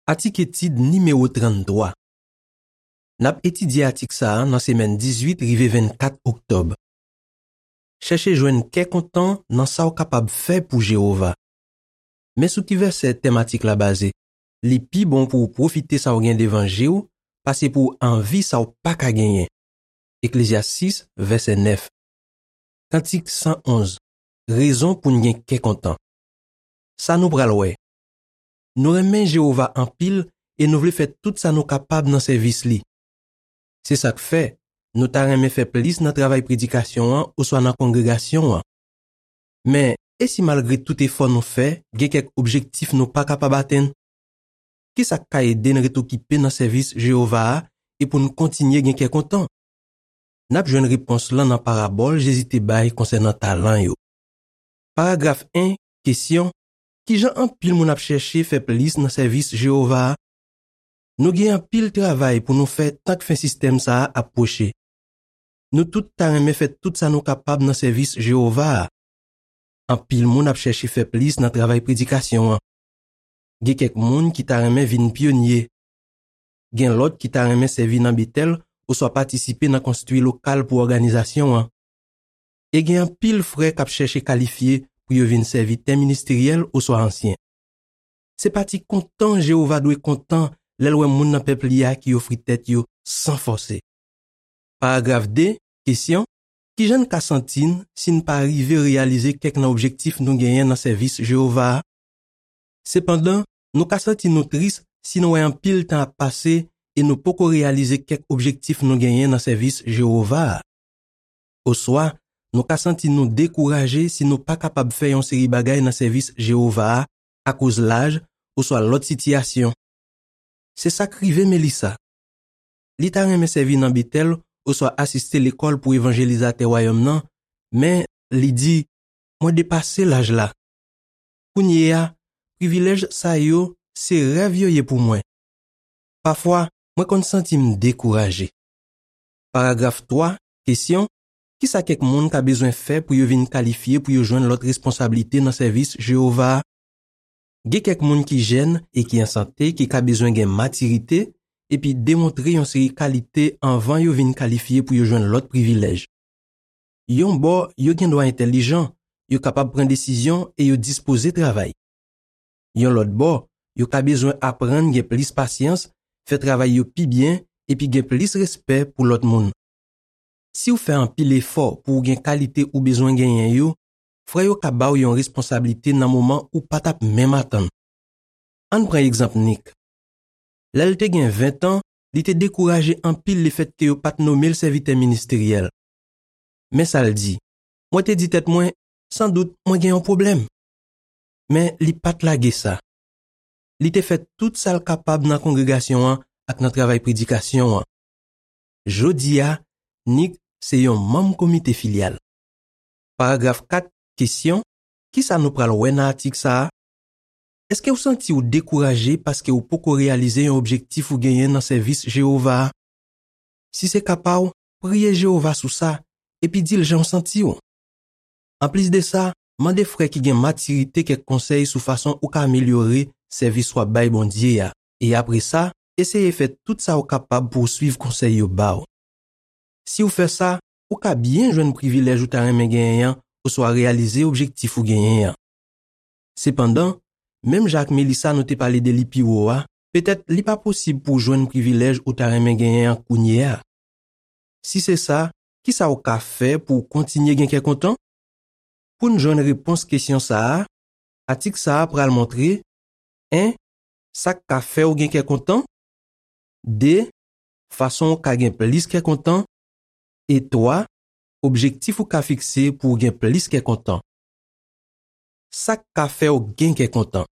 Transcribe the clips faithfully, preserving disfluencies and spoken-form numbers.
Atik etid nimewo tranntwa. N ap etidye atik sa a nan semèn dizuit rive vennkat oktòb. Chèche jwenn kè kontan nan sa w kapab fè pou Jewova. Men sou ki vèsè tèm atik la baze. Li pi bon pou w pwofite sa w gen devan je w pase pou w anvi sa w pa ka genyen. Eklezyas sis, vèsè nèf. Kantik san onz. Rezon pou n gen kè kontan. Sa nou pral wè. Nou renmen Jewova anpil e nou vle fè tout sa nou kapab nan sèvis li. Se sa k fè, nou ta renmen fè plis nan travay predikasyon an oswa nan kongregasyon an. Men, e si malgre tout efò nou fè, gen kèk objektif nou pa kapab atenn? Ki sa k ka ede n ret okipe nan sèvis Jewova a e pou n kontinye gen kè kontan? N ap jwenn repons lan nan parabòl Jezi te bay konsènan talan yo. Paragraf en, kesyon: ki jan anpil moun ap chèche fè plis nan sèvis Jewova a? Nou gen anpil travay pou nou fè tank fen sistèm sa a ap pwoche. Nou tout ta renmen fè tout sa nou kapab nan sèvis Jewova a. Anpil moun ap chèche fè plis nan travay predikasyon an. Gen kèk moun ki ta renmen vin pyonye. Gen lòt ki ta renmen sèvi nan Betèl oswa patisipe nan konstwi lokal pou òganizasyon an. E gen anpil frè k ap chèche kalifye pou yo vin sèvitè ministeryèl oswa ansyen. Se pati kontan Jewova dwe kontan lè l wè moun nan pèp li a ki ofri tèt yo san fòse. Paragraf de, kesyon: ki jan n ka santi n si n pa rive reyalize kèk nan objektif nou genyen nan sèvis Jewova a? Sepandan, nou ka santi nou tris si nou wè anpil tan ap pase e nou poko reyalize kèk objektif nou genyen nan sèvis Jewova a. Oswa, nou ka santi nou dekouraje si nou pa kapab fè yon seri bagay nan sèvis Jewova a akoz laj oswa lòt sitiyasyon. Se sa k rive Melissa. Li ta renmen sèvi nan Betèl oswa asiste lekòl pou evanjelizatè Wayòm nan, men li di, "Mwen depase laj la. Kounye a, privilèj sa yo, se rèv yo ye pou mwen. Pafwa, mwen konn santi m dekouraje." Paragraf twa, kesyon: ki sa kèk moun ka bezwen fè pou yo vin kalifye pou yo jwenn lòt responsablite nan sèvis Jewova a? Gen kèk moun ki jèn e ki an sante ki ka bezwen gen matirite epi demontre yon seri kalite anvan yo vin kalifye pou yo jwenn lòt privilèj. Yon bò, yo gen dwa entèlijan, yo kapab pran desizyon e yo dispoze travay. Yon lòt bò, yo ka bezwen aprann gen plis pasyans, fè travay yo pi byen, epi gen plis respè pou lòt moun. Si w fè anpil efò pou w gen kalite ou bezwen genyen yo, frè yo ka ba w yon responsablite nan moman ou pa t ap menm atann. Ann pran egzanp Nick. Lè l te gen ven tan, li te dekouraje anpil lefètke yo pa t nome l sèvitè ministeryèl. Men sa l di, "Mwen te di tèt mwen, sandout mwen gen yon pwoblèm." Men li pa t lage sa. Li te fè tout sa l kapab nan kongregasyon an ak nan travay predikasyon an. Jodi a, Nick se yon manm komite filyal. Paragraf kat, kesyon: ki sa nou pral wè nan atik sa a? Èske w santi w dekouraje paske w poko reyalize yon objektif ou genyen nan sèvis Jewova a? Si se ka pa w, priye Jewova sou sa, epi di l jan w santi w. Anplis de sa, mande frè ki gen matirite kèk konsèy sou fason ou ka amelyore sèvis w ap bay Bondye a, e apre sa, eseye fè tout sa w kapab pou w suiv konsèy yo ba w. Si w fè sa, ou ka byen jwenn privilèj ou ta renmen genyen an oswa reyalize objektif ou genyen an. Sepandan, menm jan ak Melissa nou te pale de li pi wo a, petèt li pa posib pou w jwenn privilèj ou ta renmen genyen an kounye a. Si se sa, ki sa w ka fè pou w kontinye gen kè kontan? Pou n jwenn repons kesyon sa a, atik sa a pral montre, en, sa k ka fè w gen kè kontan, de, fason w ka gen plis kè kontan, e twa, objektif ou ka fikse pou w gen plis kè kontan. Sa k ka fè w gen kè kontan.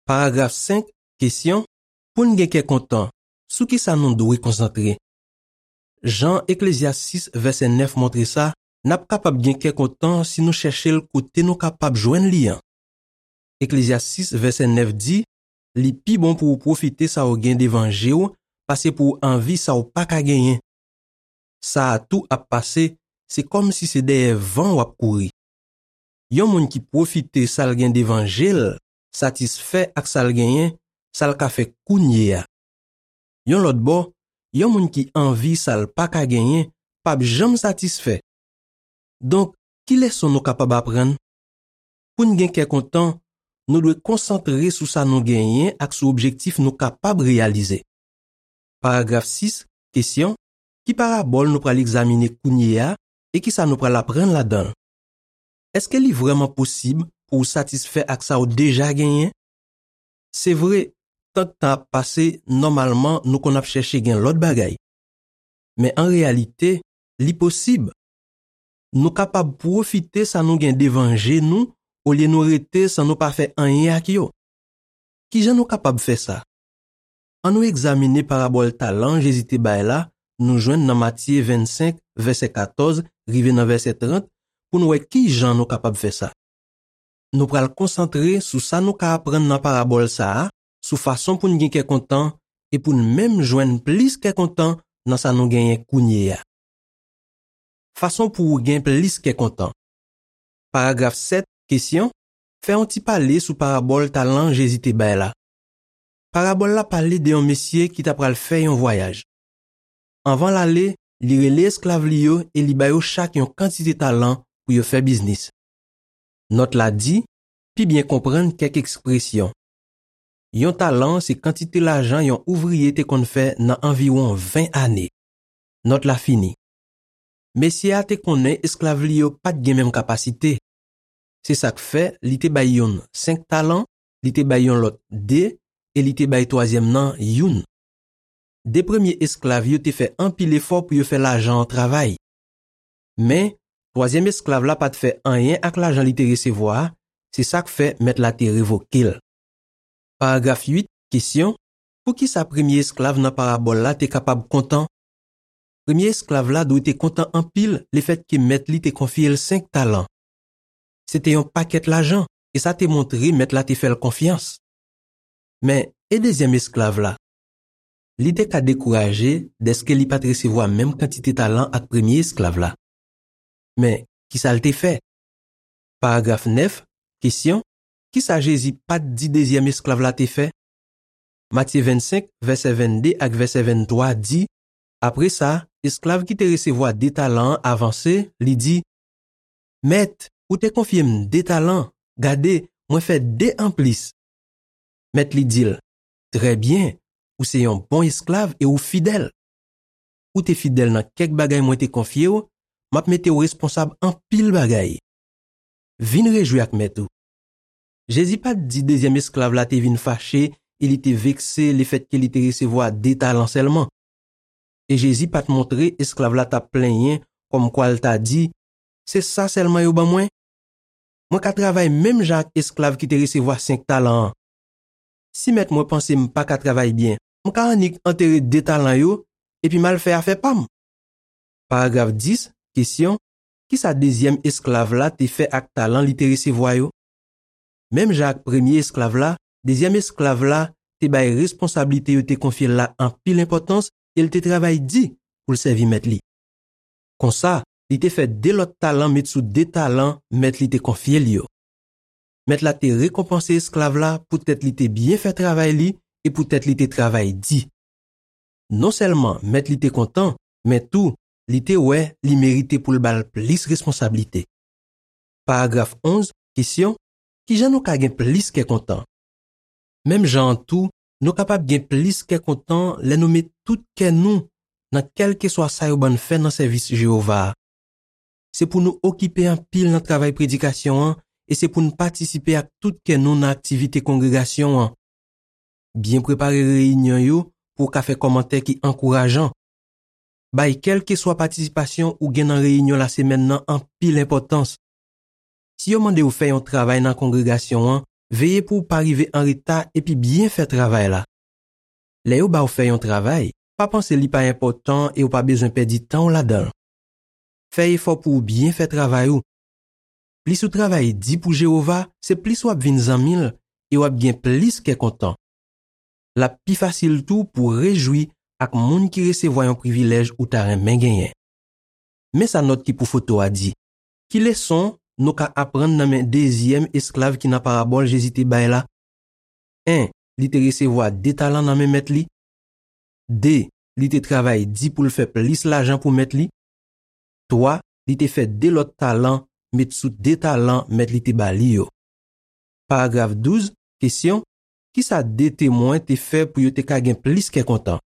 Paragraf senk, kesyon: pou n gen kè kontan, sou ki sa nou dwe konsantre? Jan Eklezyas sis vèsè nèf montre sa, n ap kapab gen kè kontan si nou chèche l kote nou kapab jwenn li an. Eklezyas sis vèsè nèf di, "Li pi bon pou w pwofite sa w gen devan je w pase pou w anvi sa w pa ka genyen. Sa a tou ap pase, se kòmsi se dèyè van w ap kouri." Yon moun ki pwofite sa l gen devan je l, satisfè ak sa l genyen, sa l ka fè kounye a. Yon lòt bò, yon moun ki anvi sa l pa ka genyen p ap janm satisfè. Donk, ki leson nou kapab aprann? Pou n gen kè kontan, nou dwe konsantre sou sa nou genyen ak sou objektif nou kapab reyalize. Paragraf sis, kesyon, ki parabòl nou pral egzamine kounye a e ki sa nou pral aprann ladan l? Èske li vrèman posib pou w satisfè ak sa w deja genyen? Se vre, tank tan ap pase, nòmalman nou konn ap chèche gen lòt bagay. Men an reyalite, li posib. Nou kapab pwofite sa nou gen devan je nou olye nou rete san nou pa fè anyen ak yo. Ki jan nou kapab fè sa? Ann nou egzamine parabòl talan Jezi te bay la, nou jwenn nan Matye vennsenk, vèsè katòz, rive nan vèsè trant, pou n wè ki jan nou kapab fè sa. Nou pral konsantre sou sa nou ka aprann nan parabòl sa a, sou fason pou n gen kè kontan e pou n menm jwenn plis kè kontan nan sa nou genyen kounye a. Fason pou w gen plis kè kontan. Paragraf sèt, kesyon, fè yon ti pale sou parabòl talan Jezi te bay la. Parabòl la pale de yon mesye ki ta pral fè yon vwayaj. Anvan l ale, li rele esklav li yo e li ba yo chak yon kantite talan pou yo fè biznis. Nòt la di, pi byen konprann kèk ekspresyon. Yon talan se kantite lajan yon ouvriye te konn fè nan anviwon ven ane. Nòt la fini. Mesye a te konnen esklav li yo pa t gen menm kapasite. Se sa k fè li te bay youn senk talan, li te bay yon lòt de, e li te bay twazyèm nan youn. De premye esklav yo te fè anpil efò pou yo fè lajan an travay. Men, twazyèm esklav la pa t fè anyen ak lajan li te resevwa a, se sa k fè mèt la te revoke l. Paragraf uit, kesyon, poukisa premye esklav nan parabòl la te kapab kontan? Premye esklav la dwe te kontan anpil lefètke mèt li te konfye l senk talan. Se te yon pakèt lajan, e sa te montre mèt la te fè l konfyans. Men, e dezyèm esklav la? Li te ka dekouraje dèske li pa t resevwa menm kantite talan ak premye esklav la. Men, ki sa l te fè? Paragraf nèf, kesyon, ki sa Jezi pa t di dezyèm esklav la te fè? Matye vennsenk, vèsè vennde ak vèsè venntwa di, apre sa, esklav ki te resevwa de talan an avanse, li di, Mèt, ou te konfye m de talan, gade, mwen fè de anplis. Mèt li di l, Trè byen, ou se yon bon esklav e ou fidèl. Ou te fidèl nan kèk bagay mwen te konfye w, m ap mete w responsab anpil bagay. Vin rejwi ak mèt ou. Jezi pa t di dezyèm esklav la te vin fache e li te vekse lefètke li te resevwa de talan sèlman. E Jezi pa t montre esklav la t ap plenyen kòmkwa l ta di, Se sa sèlman yo ban mwen? Mwen ka travay menm jan ak esklav ki te resevwa senk talan an. Si mèt mwen panse m pa ka travay byen, m ka annik antere de talan yo epi m al fè afè pa m. Paragraf dis, kesyon, ki sa dezyèm esklav la te fè ak talan li te resevwa yo? Menm jan ak premye esklav la, dezyèm esklav la te bay responsablite yo te konfye l la anpil enpòtans e l te travay di pou l sèvi mèt li. Konsa, li te fè de lòt talan met sou de talan mèt li te konfye l yo. Mèt la te rekonpanse esklav la poutèt li te byen fè travay li e poutèt li te travay di. Non sèlman mèt li te kontan, men tou, li te wè li merite pou l ba l plis responsablite. Paragraf onz, kesyon, ki jan nou ka gen plis kè kontan? Menm jan an tou, nou kapab gen plis kè kontan lè nou met tout kè nou nan kèlkeswa sa yo ban n fè nan sèvis Jewova a. Se pou nou okipe anpil nan travay predikasyon an e se pou n patisipe ak tout kè nou nan aktivite kongregasyon an. Byen prepare reyinyon yo pou w ka fè kòmantè ki ankourajan. Bay kèlkeswa patisipasyon ou gen nan reyinyon lasemèn nan anpil enpòtans. Si yo mande w fè yon travay nan kongregasyon an, veye pou w pa rive anreta epi byen fè travay la. Lè yo ba w fè yon travay, pa panse li pa enpòtan e w pa bezwen pèdi tan w ladan l. Fè efò pou w byen fè travay ou. Plis ou travay di pou Jewova, se plis w ap vin zanmi l e w ap gen plis kè kontan. L ap pi fasil tou pou w rejwi ak moun ki resevwa yon privilèj ou ta renmen genyen. Men sa nòt ki pou foto a di. Ki leson nou ka aprann nan men dezyèm esklav ki nan parabòl Jezi te bay la? En, li te resevwa de talan nan men mèt li. De, li te travay di pou l fè plis lajan pou mèt li. Twa, li te fè de lòt talan met sou de talan mèt li te ba li yo. Paragraf douz, kesyon, kisa de temwen te fè pou yo te ka gen plis kè kontan?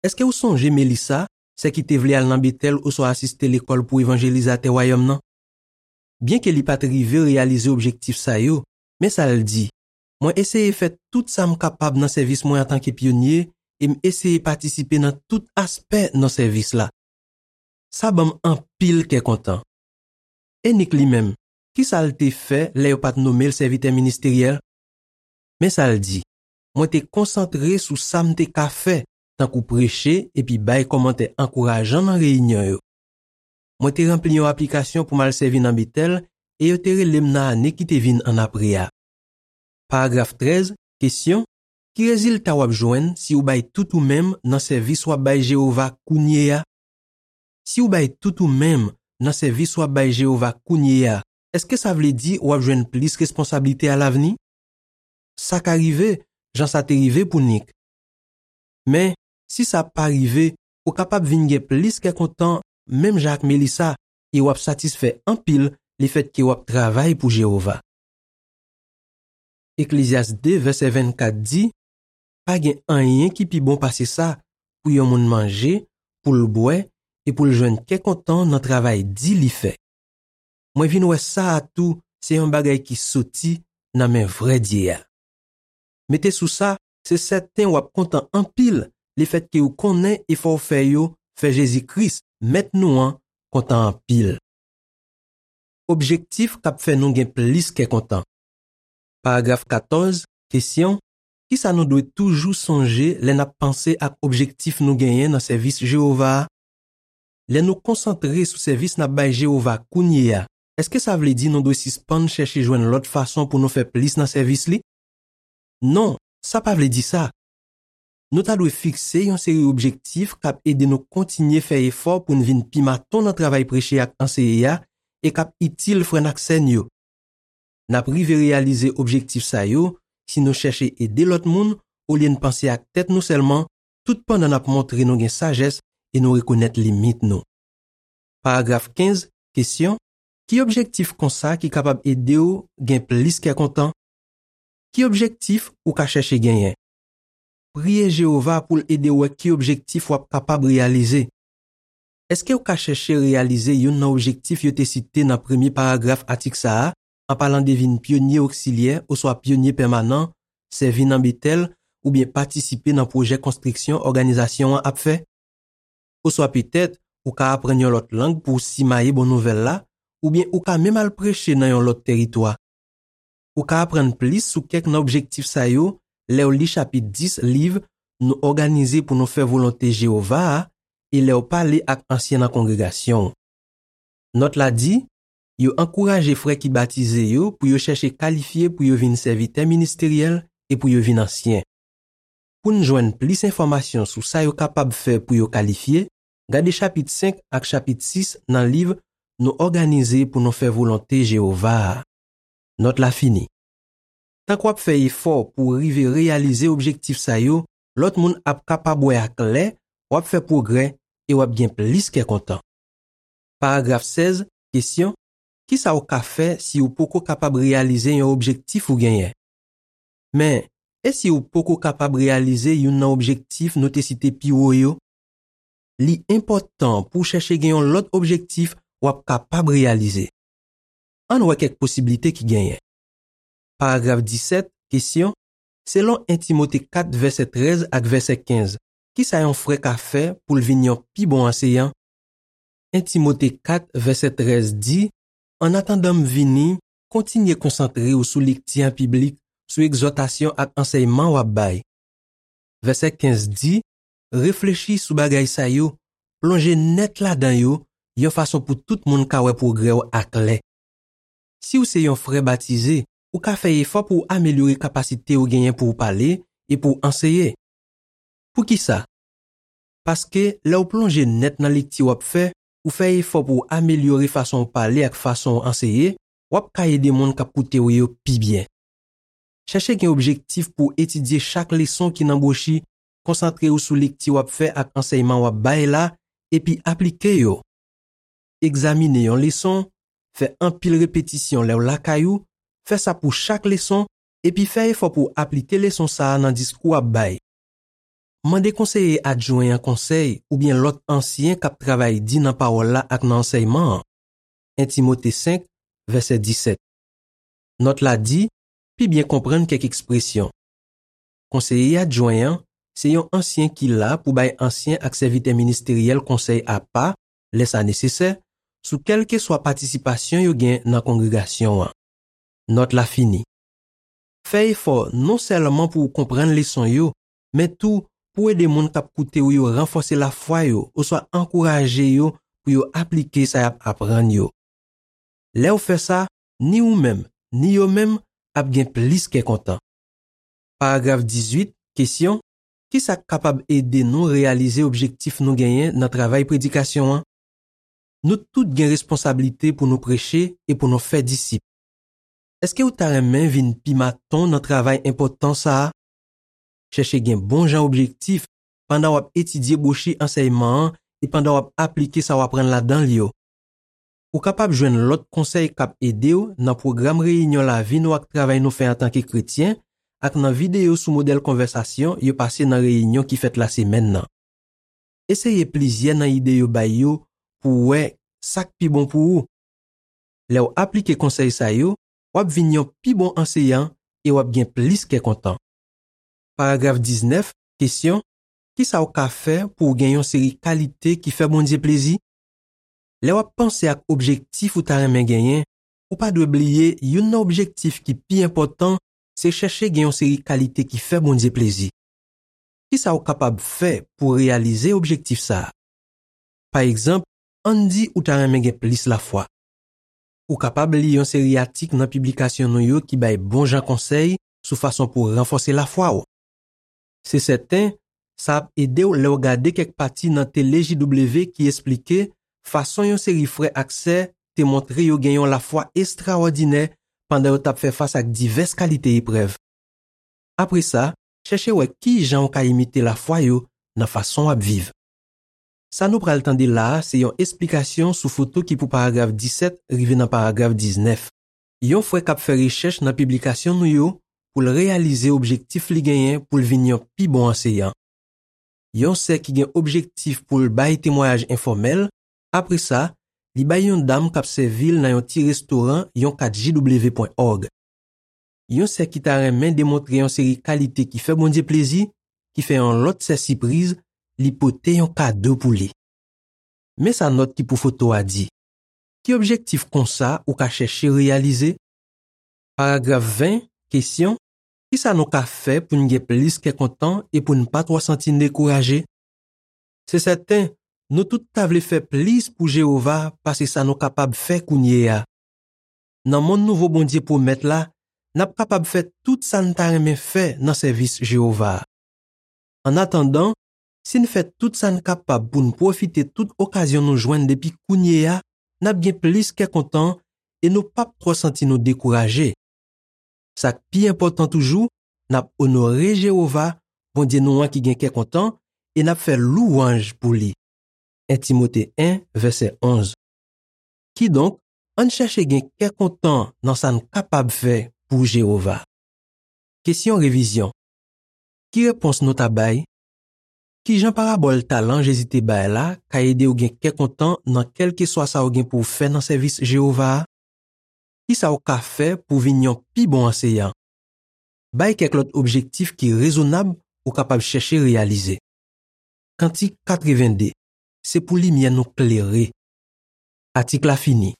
Èske w sonje Melissa, sè ki te vle al nan Betèl oswa asiste lekòl pou evanjelizatè Wayòm nan? Byenke li pa t rive reyalize objektif sa yo, men sa l di, mwen eseye fè tout sa m kapab nan sèvis mwen antanke pyonye e m eseye patisipe nan tout aspè nan sèvis la. Sa ban m anpil kè kontan. E Nick li menm, kisa l te fè lè yo pa t nonmen l sèvitè ministeryèl? Men sa l di, mwen te konsantre sou sa m te ka fè, tankou preche epi bay kòmantè ankourajan nan reyinyon yo. Mwen te ranpli yon aplikasyon pou m al sèvi nan Betèl e yo te rele m nan ane ki te vin annapre a. Paragraf trèz, kesyon, ki rezilta w ap jwenn si w bay tout ou menm nan sèvis w ap bay Jewova kounye a? Si w bay tout ou menm nan sèvis w ap bay Jewova kounye a, èske sa vle di w ap jwenn plis responsablite alavni? Sa ka rive, jan sa te rive pou Nick. Men, si sa pa rive, ou kapab vin gen plis kè kontan menm jan ak Melissa e w ap satisfè anpil lefètke w ap travay pou Jewova. Eklezyas de, vèsè vennkat di, pa gen anyen ki pi bon pase sa pou yon moun manje, pou l bwè e pou l jwenn kè kontan nan travay di li fè. Mwen vin wè sa a tou se yon bagay ki soti nan men vrè Dye a. Mete sou sa, se sèten w ap kontan anpil lefètke w konnen efò w fè yo fè Jezi Kris, Mèt nou an, kontan anpil. Objektif k ap fè nou gen plis kè kontan. Paragraf katòz, kesyon, kisa nou dwe toujou sonje lè n ap panse ak objektif nou genyen nan sèvis Jewova a? Lè nou konsantre sou sèvis n ap bay Jewova kounye a, èske sa vle di nou dwe sispann chèche jwenn lòt fason pou nou fè plis nan sèvis li? Non, sa pa vle di sa. Nou ta dwe fikse yon seri objektif k ap ede nou kontinye fè efò pou n vin pi maton nan travay preche ak anseye a e k ap itil frè n ak sè n yo. N ap rive reyalize objektif sa yo si nou chèche ede lòt moun olye n panse ak tèt nou sèlman, tout pandan n ap montre nou gen sajès e nou rekonèt limit nou. Paragraf kenz, kesyon, ki objektif konsa ki kapab ede w gen plis kè kontan? Ki objektif ou ka chèche genyen? Priye Jewova pou l ede w wè ki objektif w ap kapab reyalize. Èske w ka chèche reyalize youn nan objektif yo te site nan premye paragraf atik sa a, an palan de vin pyonye oksilyè oswa pyonye pèmanan, sèvi nan Betèl, oubyen patisipe nan pwojè konstriksyon òganizasyon an ap fè? Oswa petèt, ou ka aprann yon lòt lang pou w simaye bon nouvèl la, oubyen ou ka menm al preche nan yon lòt tèritwa. Ou ka aprann plis sou kèk nan objektif sa yo lè w li chapit dis liv Nou òganize pou nou fè volonte Jewova a e lè w pale ak ansyen nan kongregasyon w. Nòt la di, yo ankouraje frè ki batize yo pou yo chèche kalifye pou yo vin sèvitè ministeryèl e pou yo vin ansyen. Pou n jwenn plis enfòmasyon sou sa yo kapab fè pou yo kalifye, gade chapit senk ak chapit sis nan liv Nou òganize pou nou fè volonte Jewova a. Nòt la fini. Tank w ap fè efò pou w rive reyalize objektif sa yo, lòt moun ap kapab wè aklè w ap fè pwogrè e w ap gen plis kè kontan. Paragraf sèz, kesyon, kisa w ka fè si w poko kapab reyalize yon objektif ou genyen? Men, e si w poko kapab reyalize youn nan objektif nou te site pi wo yo? Li enpòtan pou w chèche gen yon lòt objektif w ap kapab reyalize. Ann wè kèk posiblite ki genyen. Paragraf disèt, kesyon, selon en Timote kat vèsè trèz ak vèsè kenz, kisa yon frè ka fè pou l vin yon pi bon anseyan? En Timote kat vèsè trèz di, annatandan m vini, kontinye konsantre w sou lekti an piblik, sou egzòtasyon ak ansèyman w ap bay. Vèsè kenz di, reflechi sou bagay sa yo, plonje nèt ladan yo, yon fason pou tout moun ka wè pwogrè w aklè. Si w se yon frè batize, ou ka fè efò pou w amelyore kapasite w genyen pou w pale e pou w anseye. Poukisa? Paske lè w plonje nèt nan lekti w ap fè, ou fè efò pou w amelyore fason w pale ak fason w anseye, w ap ka ede moun k ap koute w yo pi byen. Chèche gen objektif pou w etidye chak leson ki nan bwochi, konsantre w sou lekti w ap fè ak ansèyman w ap bay la, epi aplike yo. Egzamine yon leson, fè anpil repetisyon lè w lakay ou, fè sa pou chak leson, epi fè efò pou w aplike leson sa a nan diskou w ap bay. Mande konseye adjwen an konsèy oubyen lòt ansyen k ap travay di nan pawòl la ak nan ansèyman an. En Timote senk, vèsè disèt. Nòt la di, pi byen konprann kèk ekspresyon. Konseye adjwen an se yon ansyen ki la pou bay ansyen ak sèvitè ministeryèl konsèy apa, lè sa nesesè, sou kèlkeswa patisipasyon yo gen nan kongregasyon an. Nòt la fini. Fè efò non sèlman pou w konprann leson yo, men tou pou w ede moun k ap koute w yo ranfòse lafwa yo oswa ankouraje yo pou yo aplike sa y ap aprann yo. Lè w fè sa, ni ou menm, ni yo menm ap gen plis kè kontan. Paragraf dizuit, kesyon, ki sa k kapab ede nou reyalize objektif nou genyen nan travay predikasyon an? Nou tout gen responsablite pou nou preche e pou nou fè disip. Èske w ta renmen vin pi maton nan travay enpòtan sa a? Chèche gen bon jan objektif pandan w ap etidye bwochi ansèyman an e pandan w ap aplike sa w aprann ladan l yo. Ou kapab jwenn lòt konsèy k ap ede w nan pwogram reyinyon lavi nou ak travay nou fè antanke kretyen ak nan videyo sou modèl konvèsasyon yo pase nan reyinyon ki fèt lasemèn nan. Eseye plizyè nan ide yo bay yo pou w wè sa k pi bon pou ou. Lè w aplike konsèy sa yo, w ap vin yon pi bon anseyan e w ap gen plis kè kontan. Paragraf diznèf, kesyon, ki sa w ka fè pou w gen yon seri kalite ki fè Bondye plezi? Lè w ap panse ak objektif ou ta renmen genyen, ou pa dwe bliye youn nan objektif ki pi enpòtan se chèche gen yon seri kalite ki fè Bondye plezi. Ki sa w kapab fè pou w reyalize objektif sa a? Pa egzanp, ann di ou ta renmen gen plis lafwa. Ou kapab li yon seri atik nan piblikasyon nou yo ki bay bon jan konsèy sou fason pou w ranfòse lafwa w. Se sèten, sa ap ede w lè w gade kèk pati nan tele J W ki esplike fason yon seri frè ak sè te montre yo gen yon lafwa estrawòdinè pandan yo t ap fè fas ak divès kalite eprèv. Apre sa, chèche wè ki jan w ka imite lafwa yo nan fason w ap viv. Sa nou pral tande la a se yon esplikasyon sou foto ki pou paragraf disèt rive nan paragraf diznèf. Yon frè k ap fè rechèch nan piblikasyon nou yo pou l reyalize objektif li genyen pou l vin yon pi bon anseyan. Yon sè ki gen objektif pou l bay temwayaj enfòmèl, apre sa, li bay yon dam k ap sèvi l nan yon ti restoran yon kat J W pwen òg. Yon sè ki ta renmen demontre yon seri kalite ki fè Bondye plezi, ki fè yon lòt sè sipriz, li pote yon kado pou li. Men sa nòt ki pou foto a di. Ki objektif konsa ou ka chèche reyalize? Paragraf ven, kesyon, ki sa nou ka fè pou n gen plis kè kontan e pou n pa twò santi n dekouraje? Se sèten, nou tout ta vle fè plis pou Jewova pase sa nou kapab fè kounye a. Nan monn nouvo Bondye pwomèt la, n ap kapab fè tout sa n ta renmen fè nan sèvis Jewova a. Annatandan, si n fè tout sa n kapab pou n pwofite tout okazyon nou jwenn depi kounye a, n ap gen plis kè kontan e nou p ap twò santi nou dekouraje. Sa k pi enpòtan toujou, n ap onore Jewova, Bondye nou an ki gen kè kontan, e n ap fè louwanj pou li. En Timote en, vèsè onz. Kidonk, ann chèche gen kè kontan nan sa n kapab fè pou Jewova. Kesyon revizyon. Ki repons nou ta bay? Ki jan parabòl talan Jezi te bay la ka ede w gen kè kontan nan kèlkeswa sa w gen pou w fè nan sèvis Jewova a? Ki sa w ka fè pou w vin yon pi bon anseyan? Bay kèk lòt objektif ki rezonab ou kapab chèche reyalize. Kantik katrevende, se pou limyè nou klere. Atik la fini.